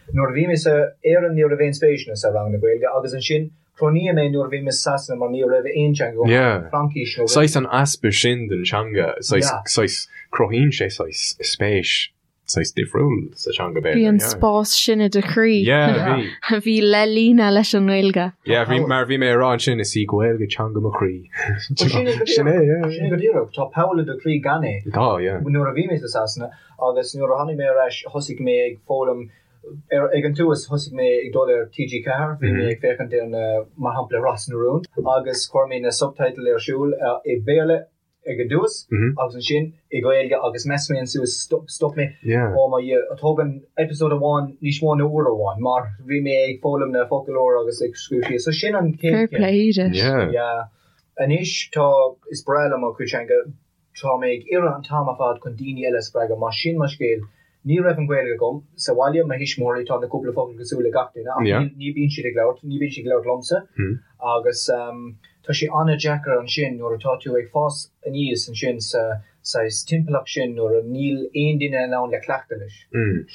Nuair a bhí mé sa Éirinn ní raibh aon spéis sa ranganna Gaeilge agus ansin chronaíodh mé nuair a bhí mé sa Sasana mar ní raibh aon teanga agam Yeah. Fraincis nó Saghas an easpa sin den teanga, saghas, Yeah. saghas, cruthaíonn sé saghas spéis saghas difriúil sa teanga b'fhéidir. Bhí an yeah. spás sin i do chroí. Yeah, bhí. A bhí le líonadh leis an nGaeilge. Yeah, bhí, mar bhí mé ag rá ansin, is í Gaeilge teanga mo chroí. Sin é go Sin é, yeah. Sin é go díreach. Tá poll i do chroí gan é. Tá, yeah. Nuair a bhí mé sa Sasana, Agus nuair a tháinig mé ar ais thosaigh mé ag foghlaim, ar, ag an tús thosaigh mé ag dul ar TG4, bhí mé ag féachaint ar na, mar shampla Ros na Rún, agus chuir mé na subtitle ar siúl i Béarla ag an dtús agus ansin i Gaeilge agus mheas mé ansin stop, stop mé, oh my Dhia, thóg an episode amháin níos mó ná uair amháin mar bhí mé ag foghlaim na focail úr agus ag scríobh síos, so sin an chéad Fair play duit. Yeah. Anois tá, is breá liom mo chuid teanga, Tá mé ag iarraidh an t-am ar fad chun daoine eile a spreagadh, mar sin mo scéal. Ní raibh an Ghaeilge agam sa bhaile, mo thuismitheoirí, tá na cúpla focal cosúil le gach duine ach ní bíonn siad ag labhairt, ní bíonn siad ag labhairt liomsa agus tá sé an-deacair ansin nuair atá tú ag fás aníos ansin sa saghas timpeallacht sin nuair a níl aon duine in ann le cleachtadh leis.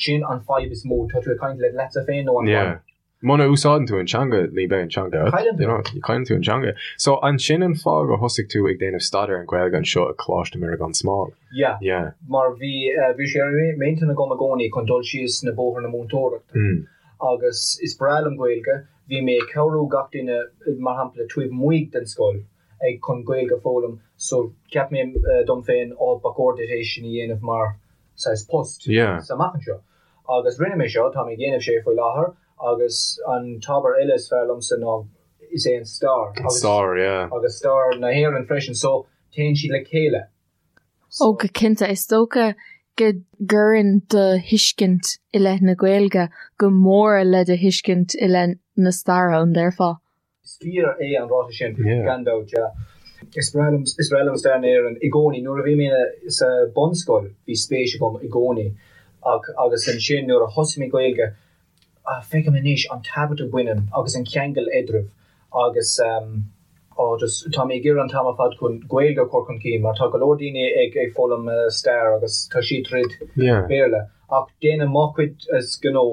Sin an fadhb is mó, tá tú ag caint le leatsa féin nó an fadhb. Muna úsáideann tú an teanga, ní bheidh an teanga agat. Cailleann tú. You know, cailleann tú an teanga. So, an sin an fáth gur thosaigh tú ag déanamh staidéar an Ghaeilge anseo i Coláiste Mhuire gan Smál? Yeah. Yeah. Mar bhí, bhí sé ar m'intinn agam i gcónaí chun dul síos na bóthar na múinteoireachta. Mm. Agus is breá liom Gaeilge. Bhí mé ag cabhrú gach duine, mar shampla, taobh amuigh den scoil ag chun Gaeilge a foghlaim. So, cheap mé dom féin, oh, ba chóir duit é sin a dhéanamh mar saghas post Yeah. sa amach anseo. Agus rinne mé seo, tá mé ag déanamh sé faoi láthair agus an t-ábhar eile is fearr liomsa ná is é an stair. An stair, yeah. Agus stair na hÉireann freisin, so téann siad le chéile. Ó go cinnte, is dócha go gcuireann do thuiscint i leith na Gaeilge go mór le do thuiscint i leith na staire, an déarfá? Is fíor é an ráiteas sin, gan dabht, yeah. Is breá liom, is breá liom stair na hÉireann i gcónaí. Nuair a bhí mé sa bunscoil bhí spéis agam i gcónaí ach agus ansin nuair a thosaigh mé Gaeilge, feicim anois an tábhacht a bhaineann agus an ceangal eadraibh agus oh just tá mé ag iarraidh an t-am ar fad chun Gaeilge a chur chun cinn mar tá go leor daoine ag ag foghlaim stair agus tá siad tríd Béarla ach déanaim mo chuid gnó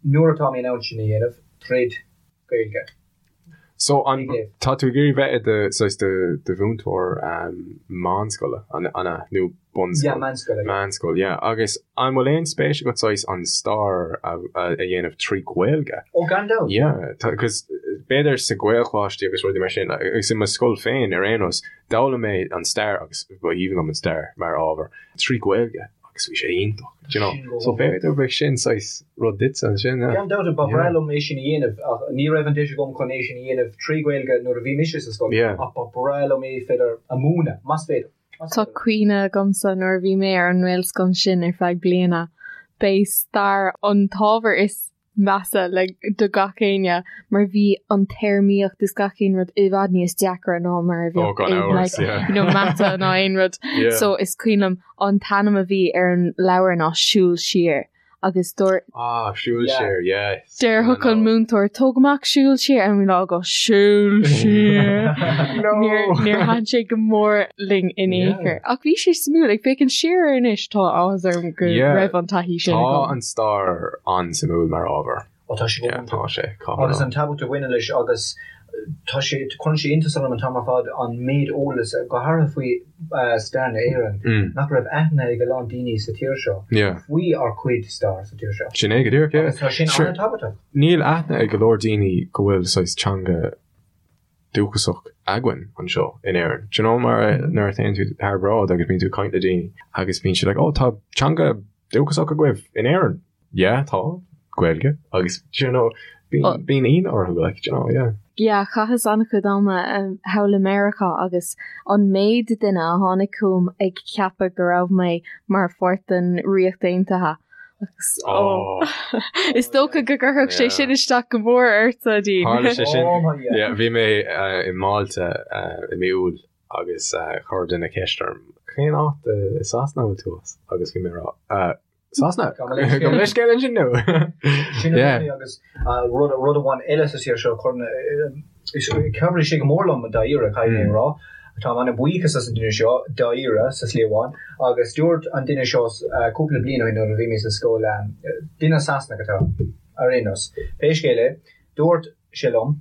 nuair atá mé in ann sin a dhéanamh tríd Gaeilge. So an tá tú ag iarraidh bheith i do saghas do do mhúinteoir meánscoile an an ea nó bunscoil? Yeah, meánscoile, yeah. Meánscoil, yeah. Agus an bhfuil aon spéis agat saghas an stair a a dhéanamh trí Ghaeilge? Oh, gan dabht. Yeah, tá cos b'fhéidir sa Ghaelcholáiste agus rudaí mar sin agus i mo scoil féin ar aon nós d'fhoghlaim mé an stair agus ba aoibhinn liom an stair mar ábhar trí Ghaeilge. agus bhí sé iontach, do you know. So b'fhéidir bheadh sin saghas rud duitse ansin, yeah. Gan dabht, ba bhreá liom é sin a dhéanamh ach ní raibh an deis agam chun é sin a dhéanamh trí Ghaeilge nuair a bhí mise sa scoil ach ba bhreá liom é féidir a mhúineadh, más féidir. Tá cuimhne agamsa nuair a bhí mé ar an nGaelscoil sin ar feadh bliana, b'é stair an t-ábhar is measa le do gach éinne mar bhí an téarmaíocht is gach aon rud i bhfad níos deacra ná mar a bheadh oh, gan amhras, like, yeah. you know, mata ná aon rud. Yeah. So is cuimhin liom an t-ainm a bhí ar an leabhar ná Siúl Siar agus dúirt Ah, Siúl Yeah. Siar, yes. Déarfadh an múinteoir tóg amach Siúl Siar and we'd all go Siúl Siar. No. Níor níor thaitin sé go mór linn in aon Yeah. chor. Ach bhí sé suimiúil ag féachaint siar air anois tá áthas orm go Yeah. raibh an taithí sin Tá agam. an stair an-suimiúil mar ábhar. Ó tá sé go Yeah, iontach. tá sé, caithfidh Agus mé an tábhacht a bhaineann leis agus tá sé, cuireann sé iontas orm an t-am ar fad an méid eolas, go háirithe faoi stair na hÉireann, Mm. nach raibh aithne ag a lán daoine sa tír seo Yeah. faoi ár cuid stair sa tír seo. Sin é go díreach, yeah. Agus tá sin Sure. an-tábhachtach. Níl aithne ag go leor daoine go bhfuil saghas teanga dúchasach againn anseo in Éirinn. Do you know mar nuair a théann tú thar bráid agus bíonn tú ag caint le daoine agus bíonn siad like oh tá teanga dúchasach agaibh in Éirinn. Yeah tá, Gaeilge agus do you know bíonn bíonn ionadh orthu like do you know yeah. Yeah chaitheas an-chuid ama thall i Meiriceá agus an méid duine a tháinig chugam ag ceapadh go raibh mé mar pháirt den Ríocht Aontaithe. Agus oh. Is dócha go gcuirfeadh sé sin isteach go mór ort, a Dean. Tharla sé sin. Yeah, bhí mé i Málta i mí Iúil agus chuir duine ceist orm, cén áit i Sasana a bhfuil tú as? Agus bhí mé ag rá, Sasana? Gabh mo leithscéal ansin nó? Sin é agus rud rud amháin eile sa tír seo chabhraigh sé go mór liom dáiríre caithfidh mé a rá. Táim an-bhuíochas as an duine seo dáiríre sa slí amháin agus dúirt an duine seo cúpla bliain ó shin nuair a bhí mé sa scoil duine Sasanach atá ar aon nós. Pé scéal é, dúirt sé liom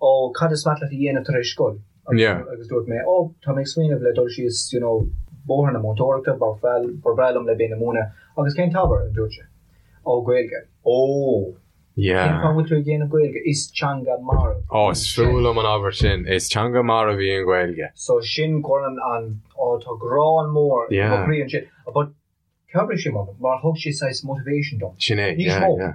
Ó, cad is maith leat a dhéanamh tar éis scoil? Agus dúirt mé, Ó, tá mé ag smaoineamh le dul síos, you know, bóthar na múinteoireachta, ba bhreá liom le bheith ina múineadh. Agus cén t-ábhar? a dúirt sé. Ó, Gaeilge. Ó! Yeah. Cén fáth a bhfuil tú ag déanamh Gaeilge? Is teanga marbh. Ó, is fuath liom an abairt sin. Is teanga marbh í an Ghaeilge. So sin cuireann an, ó, tá gearán mór i mo chroí ansin. But Chabhraigh sé liom mar thug sé saghas motivation dom. Sin é, Níos yeah, mó. yeah.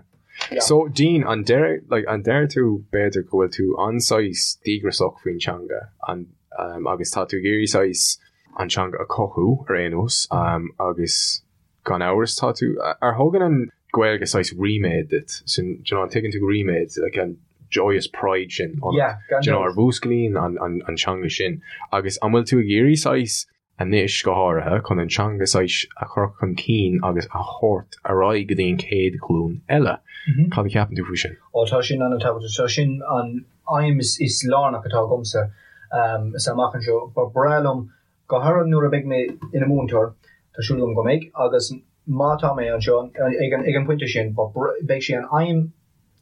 Yeah. So, Dean, an deir, like, an deir tú b'fhéidir go bhfuil tú an-saghas díograiseach faoin teanga an, um, agus tá tú ag iarraidh saghas an teanga a chothú ar aon nós um, agus gan amhras tá tú, ar thugann an Ghaeilge saghas ríméad duit, sin, do you know, an tuigeann tú ríméad, like, an joyous pride sin ionat, Yeah, gan do you know, dabht. ar mhúsclaíonn an, an, an teanga sin agus an bhfuil tú ag iarraidh saghas anois, go háirithe, chun an teanga saghas a chur chun cinn agus a thabhairt ar aghaidh go dtí an chéad ghlúin eile. Cad a cheapann tú faoi sin? Ó, tá sin an-tábhachtach. Tá sin an aidhm is lárnach atá agamsa sa amach anseo. Ba bhreá liom, go háirithe nuair a bheidh mé ina múinteoir, tá súil agam go mbeidh, agus má tá mé anseo ag an bpointe sin, beidh sé an aidhm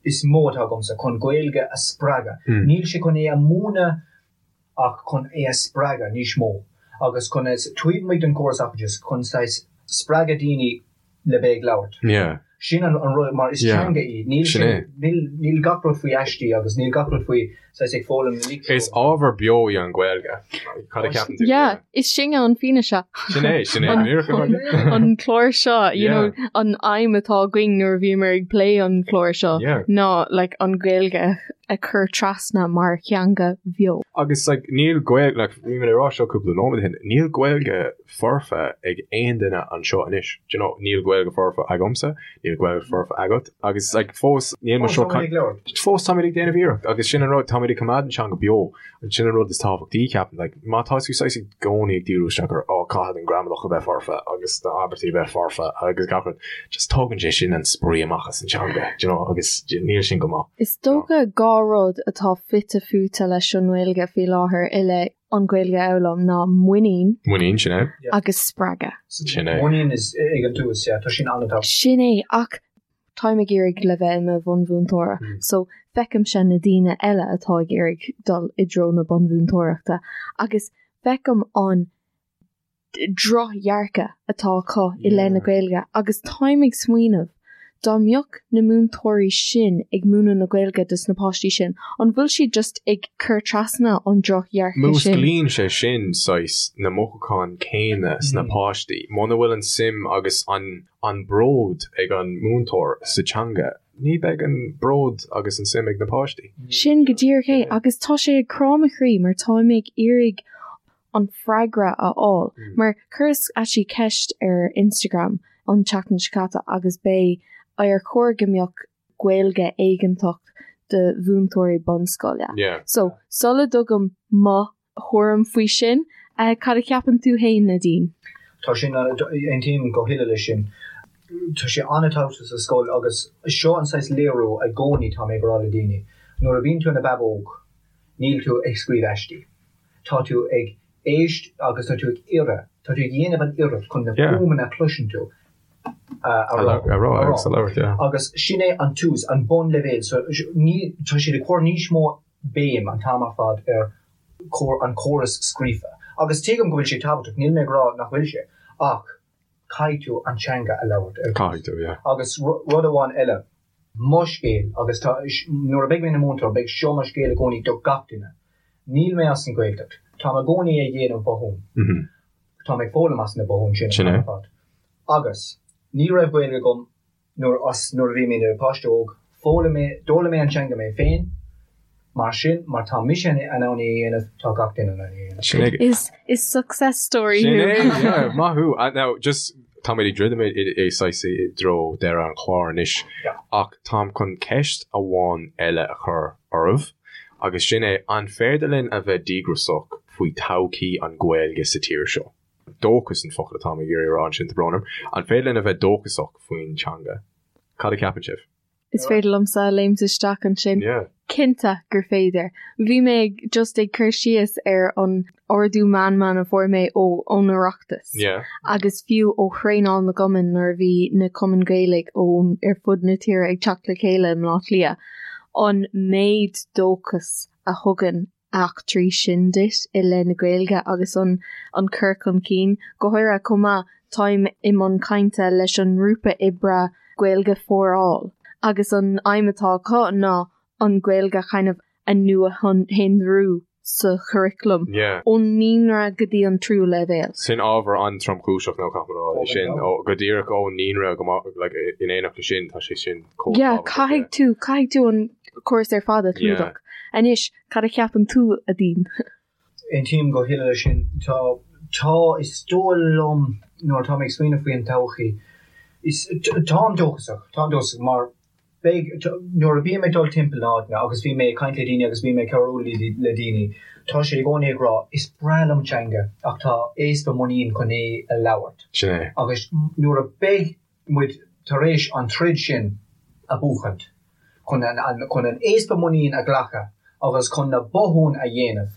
is mó atá agamsa chun Gaeilge a spreagadh. Níl sé chun é a mhúineadh ach chun é a spreagadh níos mó agus chun é, taobh amuigh den chóras oideachais, chun saghas spreagadh daoine le bheith ag labhairt. Yeah. Sin an rud, mar is Yeah. teanga í, níl Sin sin, é. níl, níl gach rud faoi aistí agus níl gach rud faoi saghas ag foghlaim na Is litriú. ábhar beo í an Ghaeilge. Cad a cheapann tú? Yeah, is sinne an fianaise. Sin é, sin é. An- Go díreach. An clár seo, you Yeah. know, an aidhm atá againn nuair a bhíomar ag plé an clár seo Yeah. ná like an Ghaeilge a chur trasna mar theanga bheo. Agus like níl Gaeilge, like bhí mé ag rá seo cúpla nóiméad ó shin, níl Gaeilge foirfe ag aon duine anseo anois. Do you know, níl Gaeilge foirfe agamsa, níl Gaeilge foirfe agat, agus like fós níl muid Fós seo táimid ag labhairt. fós táimid ag déanamh iarracht agus sin an rud, táimid ag coimeád an teanga beo, sin an rud is tábhachtaí ceapaim, like má tá tú saghas i gcónaí ag díriú isteach ar oh caithfidh an gramadach a bheith foirfe agus na abairtí a bheith foirfe agus gach rud, just tógann sé sin an spraoi amach as an teanga, do you know, agus níl sin go maith. Is dócha 2 rud atá fite fuaite leis an nGaeilge faoi láthair i leith an Ghaeilge a fhoghlaim ná muinín Muinín, sin é. agus spreagadh. Sin é. Muinín is ag an tús, yeah, tá sin an-tábhachtach. Sin é, ach táim ag iarraidh le bheith i mo bhunmhúinteoir so feicimse na daoine eile atá ag iarraidh dul i dtreo na bunmhúinteoireachta agus feicim an drochdhearcadh atá acu i leith na Gaeilge agus táim ag smaoineamh dá mbeadh na múinteoirí sin ag múineadh na Gaeilge dos na páistí sin, an bhfuil siad just ag cur trasna an drochdhearcadh sin? Músclaíonn sé sin saghas na mothúcháin céanna sna páistí. Muna bhfuil an suim agus an an bród ag an múinteoir sa teanga, ní beidh an bród agus an suim ag na páistí. Sin go díreach é agus tá sé ag crá mo chroí mar táim ag iarraidh an freagra a fháil mar chuireas actually ceist ar Instagram an tseachtain seo caite agus b'é ar chóir go mbeadh Gaeilge éigeantach do mhúinteoirí bunscoile. So sula dtugaim mo thuairim faoi sin. Cad a cheapann tú fhéin, Nadine? Tá sin, aontaím go huile leis sin. Tá sé an-tábhachtach sa scoil agus seo an saghas léiriú i gcónaí tá mé ag rá le daoine, nuair a bhíonn tú ina bhabóg níl tú ag scríobh aistí. Tá tú ag éist agus tá tú ag iarraidh, tá tú ag dhéanamh an iarracht chun na fuaimeanna a chloiseann tú a rá. A rá agus a labhairt, yeah. Agus sin é an tús, an bunleibhéal. So ní, tá siad ag cur níos mó béim an t-am ar fad ar an córas scríofa. Agus tuigim go bhfuil sé tábhachtach, níl mé ag rá nach bhfuil sé, ach caithfidh tú an teanga a labhairt ar dtús. Caithfidh tú, yeah. Agus rud amháin eile, mo scéal, agus tá, nuair a bheidh mé ina múinteoir, beidh seo mo scéal i gcónaí do gach duine. Níl mé as an Ghaeltacht. Táim i gcónaí ag dhéanamh botún. Táim ag foghlaim as na botúin sin an t-am ar fad. Agus ní raibh Gaeilge agam Nuair as nuair a bhí mé ina páiste óg, foghlaim mé, d'fhoghlaim mé an teanga mé féin, mar sin, mar tá mise in ann é a dhéanamh, tá gach duine in ann é a dhéanamh. Sin é. Is is success story Sin thú. é, yeah, maith thú. And now, just, Táimid ag druidim i saghas i dtreo deireadh an chláir anois ach táim chun ceist amháin eile a chur oraibh agus sin é, an féidir linn a bheith díograiseach faoi todhchaí an Ghaeilge sa tír seo? Dóchas an focal atáim ag iarraidh a rá ansin, tá brón orm. An féidir linn a bheith dóchasach faoin teanga? Cad a cheapann sibh? Is féidir liomsa léimt isteach ansin. Cinnte gur féidir. Bhí mé just ag cur síos ar an ardú meanman a fuair mé ó ón Oireachtas agus fiú ó thraenáil na gcumann nuair a bhí na cumainn Gaeilge ón ar fud na tíre ag teacht le chéile i mBleá Cliath, an méid dóchas a thugann eachtraí sin duit i leith na Gaeilge agus an an cur chun cinn. Go háirithe chomh maith, táim i mbun cainte leis an ngrúpa oibre Gaeilge for All agus an aidhm atá acu ná an Ghaeilge kind of a nuashonrú sa churaclam ón naíonra go dtí an tríú leibhéal. Sin ábhar an-tromchúiseach nó caithfidh mé a rá é sin, go díreach ón naíonra go like in éineacht leis sin tá sé sin chomh Yeah, tábhachtach, caithfidh tú, caithfidh tú an córas ar fad a chlúdach. Anois, Cad a cheapann tú, a Dean? Aontaím go huile leis sin. Tá, tá, is dóigh liom nuair atá mé ag smaoineamh faoi an todhchaí, is, táim dóchasach, táim dóchasach mar beidh, nuair a bím ag dul timpeall na háiteanna agus bím ag caint le daoine agus bím ag cabhrú le daoine, tá siad i gcónaí ag rá, is breá liom an teanga ach tá easpa muinín chun é a labhairt. Sin é. Agus nuair a beidh muid tar éis an troid sin a buachaint, chun an chun an easpa muinín a ghlacadh agus chun na botúin a dhéanamh,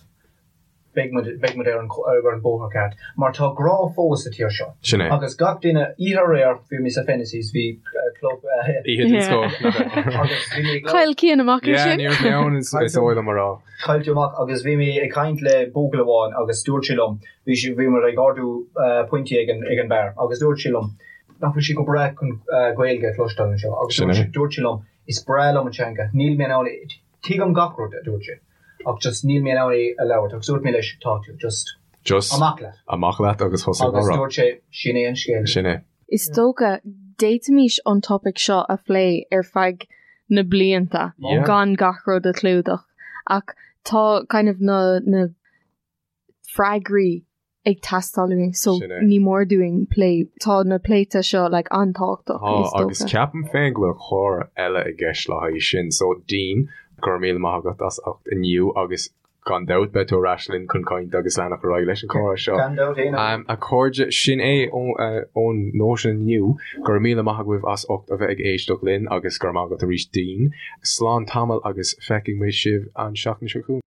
beidh muid beidh muid ar an ar an bóthar ceart. Mar tá grá fós sa tír seo. Sin é. Agus gach duine, oíche aréir, bhí mé sa Fennessys, bhí club Oíche den scoth, nach ea? agus bhí mé ag Chaill Cian amach Yeah, ansin. ní raibh mé ann, is is dóigh liom a rá. Chaill tú amach agus bhí mé ag caint le buachaill amháin agus dúirt sé liom, bhí sé, bhí muid ag ordú pointí ag an ag an beár agus dúirt sé liom nach bhfuil sé go breá chun Gaeilge a chloisteáil anseo agus dúirt sé, dúirt sé liom is breá liom an teanga, níl mé in ann é, tuigim gach rud a dúirt sé ach just níl mé in ann é a labhairt agus dúirt mé leis tá tú just Just amach leat. Amach leat agus thosaigh á rá. Agus dúirt sé sin é an scéal. Sin é. Is dócha, d'fhéadfaimis an topaic seo a phlé ar feadh na blianta gan gach rud a chlúdach ach tá kind of na na freagraí ag teastáil uainn so ní mór dúinn plé, tá na pléite seo like an-tábhachtach is dócha. Agus ceapaim féin go bhfuil clár eile i gceist le haghaidh sin so Dean, go raibh míle maith agat as ucht inniu agus Gan dabht, beidh tú ar ais linn chun caint agus leanacht ar aghaidh leis an chomhrá seo. Gan dabht aon. A chairde, sin é ón Nóisean inniu. Go raibh míle maith agaibh as ucht a bheith ag éisteacht linn agus go raibh maith agat arís Dean. Slán tamall agus feicfidh muid sibh an seachtain seo chugainn.